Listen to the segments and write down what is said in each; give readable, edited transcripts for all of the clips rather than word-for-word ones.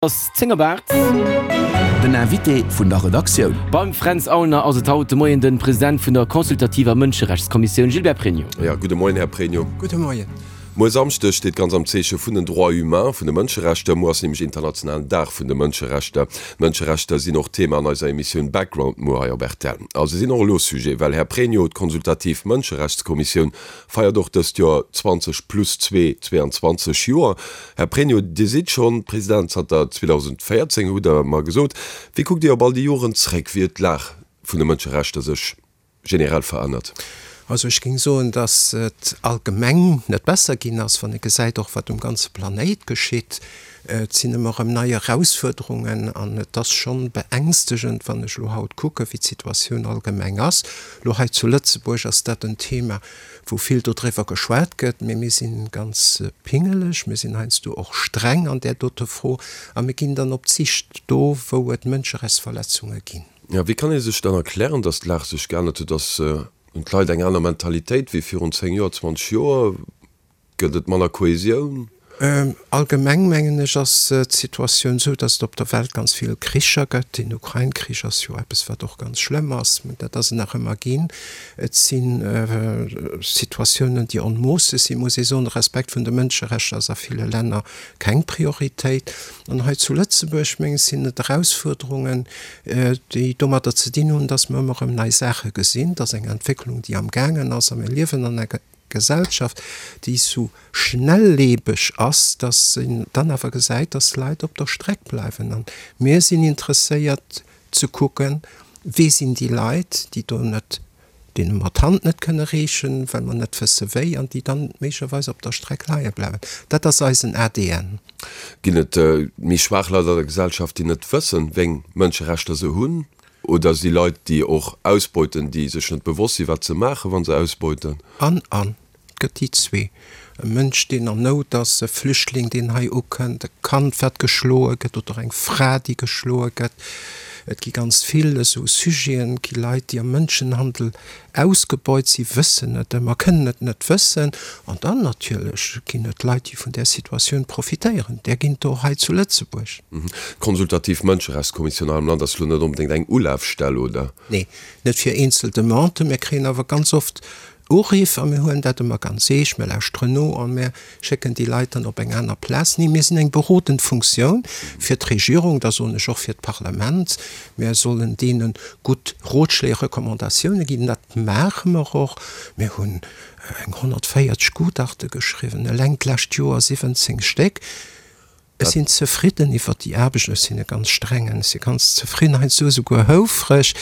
Ass 10 op 8. Den Invité vun der Redaktioun. Beim Fränz Aulner ass et haut de Moien de President vun der consultativer Mënscherechtskommissioun Gilbert Pregno. Jo, gudde Moien, Här Pregno. Gudde Moien. Muer Samschdeg steet ganz am Zeeche vun den Droits humains, vun de Mënscherechter. Muer ass nämlech internationalen Dag vun de Mënscherechter. D'Mënscherechter sinn och Thema an eiser Emissioun Background muer hei op rtl. A se sinn och elo Sujet, well, Här Pregno, d'consultativ Mënscherechtskommissioun feiert och dëst Joer 20 plus zwee, 22 Joer. Här Pregno, Dir sidd schonn President zanter 2014, hutt Der mer gesot. Wéi kuckt Dir op all déi Joren zréck? Wéi huet d'Lag vun de Mënscherechter sech generell verännert? Also ech géing soen, datt et allgemeng net besser ginn ass, wann ee gesäit och wat um ganze Planéit geschitt. Et sinn ëmmer erëm nei Erausfuerderungen an et ass schonn beängstegend, wann ech elo haut kucken, wéi d'Situatioun allgemeng ass. Elo hei zu Lëtzebuerg ass dat en Thema, wou vill dodriwwer geschwat gëtt, mee mir si ganz pingeleg, mir sinn heiansdo och streng an där dote Fro a mir ginn dann op d'Sicht do, wou et Mënscherechtsverletzunge ginn. Jo, wéi kann ee sech dann erklären, datt d'Lag sech geännert huet? Ass, hunn d'Leit eng aner Mentalitéit wéi virun 10 Joer, 20 Joer? Gëtt et manner Kohesioun? Allgemeng mengen ech ass d'Situatioun esou, datt et op der Welt ganz vill Kricher gëtt. Den Ukrain-Krich ass jo eppes wat och ganz schlëmm ass, mä dat ass et nach ëmmer ginn. Et si Situatiounen déi onmoosseg sinn, muss ee soen. De Respekt vun de Mënscherechter ass a ville Länner keng Prioritéit. An hei zu Lëtzebuerg meng ech sinn et Erausfuerderungen, déi domatter ze dinn hunn, datt mer ëmmer erëm nei Saache gesinn. Et ass eng Entwécklung déi am gaangen ass a mir liewen an enger Gesellschaft, déi sou schnelllebeg ass, dass een dann awer gesäit, dass Leit op der Streck bleiwen. An mir sinn interesséiert ze kucken, Wie sinn déi Leit, déi do net, deene mer d'Hand net kënne reechen, well mer net wësse wéi, an déi dann méiglecherweis op der Streck leie bleiwen. Dat ass eisen ADN. Ginn et méi schwaach Leit an der Gesellschaft, déi net wëssen, wéi eng Mënscherechter se hunn? Oder si Leit, déi och ausbeuten, déi sech net bewosst sinn, wat se maachen, wa se ausbeuten? An, an. Et gëtt déi zwee. E Mënsch, deen an Nout ass, e Flüchtling, deen hei ukënnt, e Kand, wat geschloe gëtt, oder eng Fra, déi geschloe gëtt. Et gi ganz vill esou Sujeten. Et gi Leit, déi am Mënschenhandel Ausgebeut, si wëssen et ëmmer, kënnen et net wëssen. An dann natierlech ginn et Leit, déi vun där Situatioun profitéieren. Där ginn et och hei zu Lëtzebuerg. D'Konsultativ Mënscherechtskommissioun hei am Land ass elo net onbedéngt eng Ulafstell, oder? Nee, net fir eenzel Demanden. Mir kréien awer ganz oft Uriff a mir huelen dat ëmmer ganz eescht. Mir lauschteren no a mir schécken déi Leit dann op eng aner Plaz. Nee, mir sinn eng berodend Funktioun fir d'Regierung, da soen ech och fir d'Parlament. Mir sollen deene gutt Rotschléi, Recommandatioune ginn. Dat maache mer och. Mir hunn eng 140 Gutachte geschriwwen, eleng d'lescht Joer 17 Stéck. Ech sinn zefridden iwwert déi Aarbecht. Ech sinn e ganz strengen, ech si ganz zefridden, heiansdo esouguer houfreg.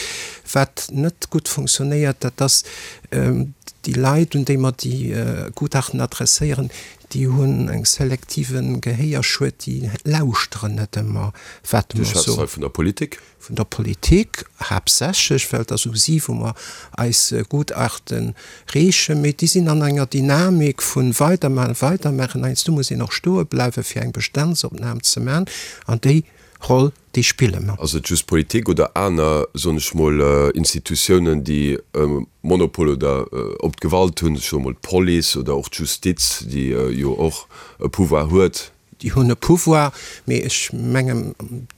Wat net gutt funktionéiert, dat ass, déi Leit, un déi mer déi Gutachten adresséieren, déi hunn eng selektive Gehéierschued, déi lauschteren net ëmmer, wat mer soen. Du schwätz hei vun der Politik? Vun der Politik haaptsächlech, well et ass u si, wou mer eis Gutachte reechen. Mee déi sinn an enger Dynamik vu weidermaachen, weidermaachen. Heiansdo muss een och stoe bleiwen, fir eng Bestandsopnam ze maachen. An déi Roll, déi spille mer. Ass et just d'Politik oder aner, soen ech mol, Institutiounen, déi e Monopol oder op d'Gewalt hunn, ech soe mol d'Police oder och d'Justiz, déi jo och e Pouvoir huet? Déi hunn e Pouvoir, mee ech mengen,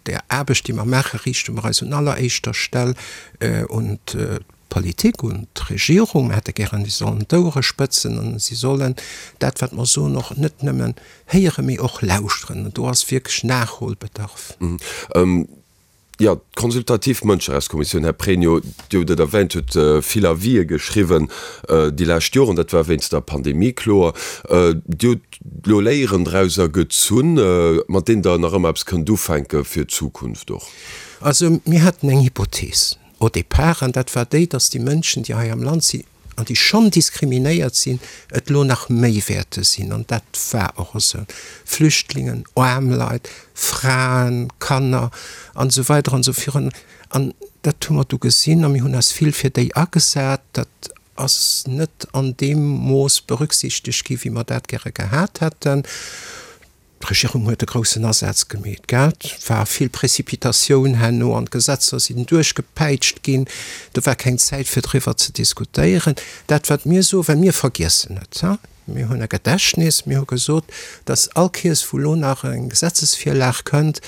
där Aarbecht, déi mer maachen, riichte mer eis un alleréischter Stell un d'Politik, un d'Regierung. Mer hätte gären, si sollen d'Ouere spëtzen an si sollen dat, wat mer soen, och net nëmmen héieren, mee och lauschteren. An do ass wierklech Nachholbedarf. Jo, d'Consultativ Mënscherechtskommissioun, Här Pregno, Dir hutt et erwähnt, huet vill Avisë geschriwwen déi lescht Joren. Dat war wéinst der Pandemie kloer. Dir hutt elo Léieren drauser gezunn, mat deenen Der nach ëmmer eppes kënnt ufänke fir d'Zukunft och. Also mir haten eng Hypothees au départ, an dat war déi, dass déi Mënschen, déi hei am Land sinn, an déi schonn diskriminéiert sinn, et elo nach méi wäerte sinn. An dat war och esou. Flüchtlingen, aarm Leit, Fraen, Kanner an esou weider an esou virun. An dat hu mer du gesinn a mir hunn eis vill fir déi agesat. Dat ass net an deem Mooss berücksichtegt gi wéi mer dat gäre gehat hätten. D'Regierung huet e groussen Asaz gemeet, gell? Et war vill Précipitatioun herno an d'Gesetzer sinn duerchgepäitscht ginn. Do war keng Zäit fir driwwer ze diskutéieren. Dat wat mir soen, well mir vergiessen net, he? Mir hunn e Gedächtnis. Mir hu gesot, dass all Kees, wou elo nach eng Gesetzesvirlag kënnt,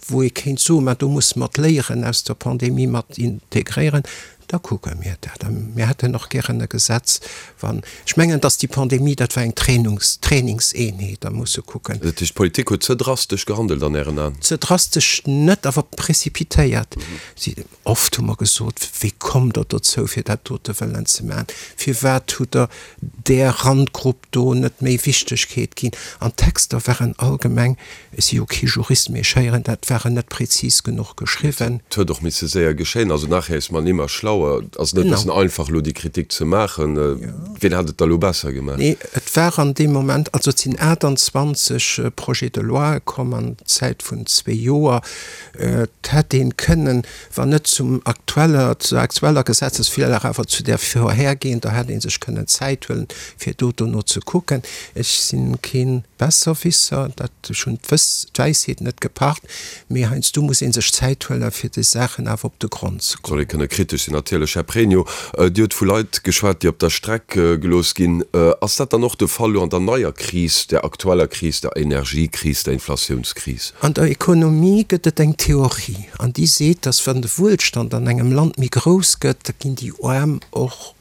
wou ee kéint soen, mä do musse mer d'Léieren aus der Pandemie mat integréieren, da kucke mir dat. A mir hätten och gären e Gesetz, wann, ech mengen, dass déi Pandemie, dat war eng Trainungs-, Trainingseenheet, da musse kucken. Dat heescht, d'Politik huet ze drastesch gehandelt an Ären Aen? Ze drastesch net, awer précipitéiert. Si, oft hu mer gesot, Wéi kommt Der dozou, fir dat dote wëllen ze maachen? Firwat hutt Der där Randgrupp do net méi Wichtegkeet ginn? An d'Texter waren allgemeng Ech si jo kee Jurist, mee ech héieren, dat waren net präzis genuch geschriwwen. Et huet och misse séier geschéien. Also nachher is man immer schlauer. Ass net e bëssen einfach elo déi Kritik ze maachen. Wien hätt et da elo besser gemaach? Nee, et war an deem Moment, also et sinn 28 Projets de loi komm an Zäit vun zwee Joer. Et hätt ee kënnen, wann net zum aktueller, zur aktueller Gesetzesvirlag, awer zu där vorhergehender hätt ee sech kënnen Zäit huelen, fir do dono ze kucken. Ech si kee Besserwisser, dat, ech hunn d'Wëss, d'Wäisheet net gepacht, mee heiansdo muss ee sech Zäit huelen, fir de Saachen awer op de Grond ze goen. Soll ee kënne kritesch sinn, natierlech. Här Pregno, Dir hutt vu Leit geschwat, déi op der Streck gelooss ginn. Ass dat dann och de Fall elo an der neier Kris, der aktueller Kris, der Energiekris, der Inflatiounskris? An der Ekonomie gëtt et eng Theorie, an déi seet, dass wann de Wuelstand an engem Land méi grouss gëtt, da ginn déi Aarm och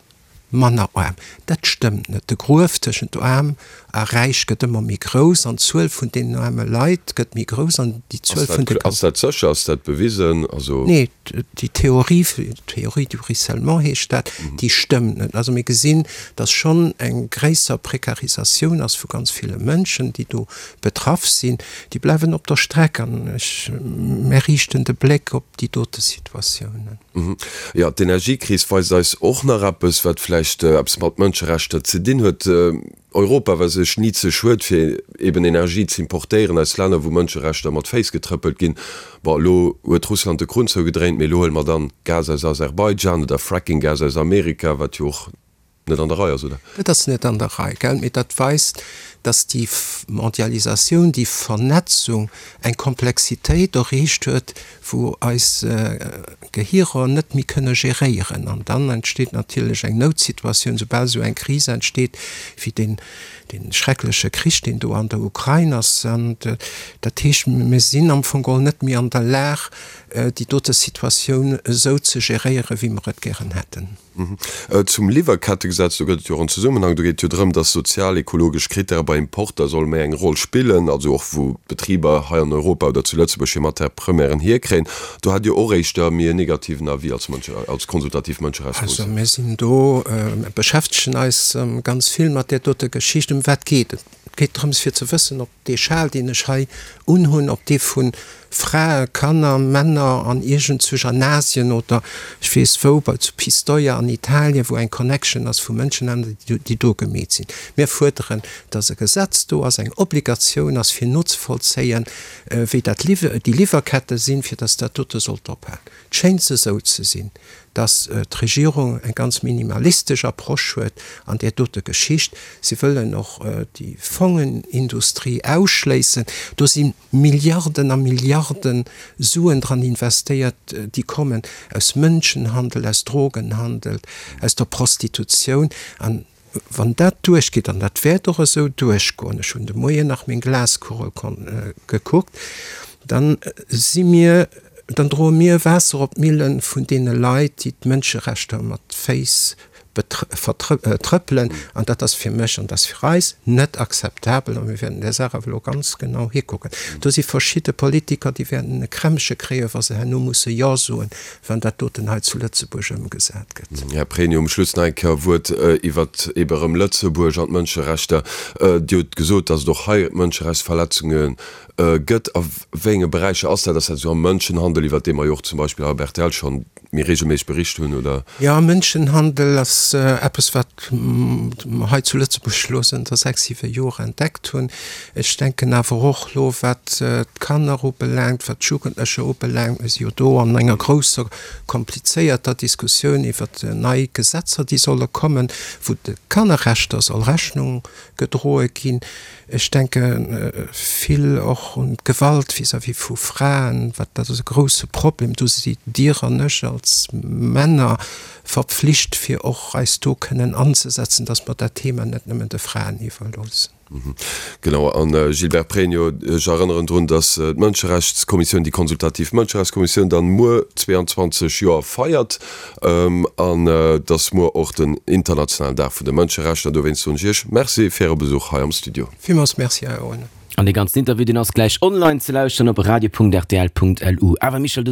manner aarm. Dat stëmmt net. De Gruef tëschent aarm a räich gëtt ëmmer méi grouss an d'Zuel vun deenen aarme Leit gëtt méi grouss an déi Zuel vun de. Ass dat sécher? Ass dat bewisen? Also. Nee, déi Theorie, Théorie du ruissellement heescht dat, déi stëmmt net. Also mir gesinn, dass schonn eng gréisser Prekarisatioun ass vu ganz ville Mënschen, déi do betraff sinn. Déi bleiwen op der Streck an ech, mir riichten de Bléck op déi dote Situatiounen. Jo, d'Energiekris weist eis och nach eppes, wat vläicht eppes mat Mënscherechter ze dinn huet. Europa war sech ni ze schued, fir eben Energie ze importéieren aus Länner, wou Mënscherechter mat Féiss getrëppelt ginn. Bon, elo huet Russland de Krunn zougedréint, mee elo huele mer dann Gas aus Aserbaidschan oder Fracking-Gas aus Amerika, wat jo och net an der Rei ass, oder? Dat ass net an der Rei, gell? Mee dat weist, dass déi Mondialisatioun, déi Vernetzung eng Komplexitéit erreecht huet, wou eis Gehirer net méi kënne geréieren. An dann entsteet natierlech eng Noutsituatioun, soubal esou eng Kris entsteet, wéi deen, dee schreckleche Krich, deen do an der Ukrain ass. An dat heescht, mir sinn am Fong geholl net méi an der Lag, déi dote Situatioun esou ze geréieren, wéi mer et gären hätten. Zum Liwwerkettegesetz, do gëtt et jo och en Zesummenhang. Do geet et jo drëm, dass sozial-ekologesch Krittäre bei Importer solle méi eng Roll spillen, also och wou d'Betriber hei an Europa oder zu Lëtzebuerg hir Matière-premièren hierkréien. Do hat Dir och éischter méi en negativen Avis als Mënsche, als konsultativ Mënscherechtskommissioun. Also mir sinn do, mir beschäftegen eis ganz vill mat där dote Geschicht. Ëm wat geet et? Et geet drëms fir ze wëssen, ob dee Schal, deen ech hei unhunn, ob dee vu Frae, Kanner, Männer an iergendzuch an Asien oder ech weess wou, bei zu Pistoia an Italien, wou eng Connection ass vu Mënschenhändler, déi do gemeet sinn. Mir fuerderen, dass e Gesetz do ass, eng Obligatioun ass, fir nozevollzéien, wéi dat déi Liwwerkette sinn, fir dass dat dote sollt ophalen. Et schéint esou ze sinn, dass d'Regierung eng ganz minimalistesch Approche huet an där dote Geschicht. Si wëllen och déi Fongenindustrie ausschléissen. Do si Milliarden a Milliarde Suen dran investéiert, déi kommen aus Mënschenhandel, aus Drogenhandel, aus der Prostitutioun. An Wann dat duerchgeet, an dat wäert och esou duerchgoen, ech hunn de Moien nach meng Glaskugel gekuckt, dann si mir, dann droe mir Waasser op d'Mille vun deene Leit, déi d'Mënscherechter mat Féiss vertrëppelen. An dat ass fir mech an dat ass fir eis net akzeptabel. A mir wäerten där Saach awer elo ganz genau hikucken. Do si verschidde Politiker, déi wäerten e Krämpche kréien, wa se herno musse Jo soen, wann dat doten hei zu Lëtzebuerg ëmgesat gëtt. Här Pregno, um Schluss nach eng Kéier e Wuert iwwert ebe erëm Lëtzebuerg an d'Mënscherechter. Dir hutt gesot, datt et och hei Mënscherechtsverletzunge gëtt. A wéi enge Beräicher ass dat? Ass dat esou am Mënschenhandel, iwwert dee mer jo och zum Beispill hei op rtl schonn méi reegelméisseg bericht hunn, oder? Jo, Mënschenhandel ass eppes, wat mer hei zu Lëtzebuerg elo zënter 6, 7 Joer entdeckt hunn. Ech denken awer och elo, wat d'Kanner ubelaangt, wat d'Jugendlecher ubelaangt, mir si jo do an enger grousser, komplizéierter Diskussioun iwwert nei Gesetzer, déi solle kommen, wou de Kannerrechter soll Rechnung gedroe ginn. Ech denke vill och. och un d'Gewalt vis-à-vis vu Fraen, wat dat ass e grouse Problem, do si Dir an ech als Männer verpflicht fir och eis do kënnen anzesetzen, dass mer dat Thema net nëmmen de Fraen iwwerloossen. Genau, an Gilbert Pregno, ech erënneren drun, dass d'Mënscherechtskommissioun, déi konsultativ Mënscherechtskommissioun dann muer 22 Joer feiert an dass muer och den internationalen Dag vun de Mënscherechter. Dowéinst soen ech Iech Merci fir Äre Besuch hei am Studio. Villmools Merci, Här Owen. An dee ganzen Interview, deen ass gläich online ze lauschteren op radio.rtl.lu. Awer Michel, du.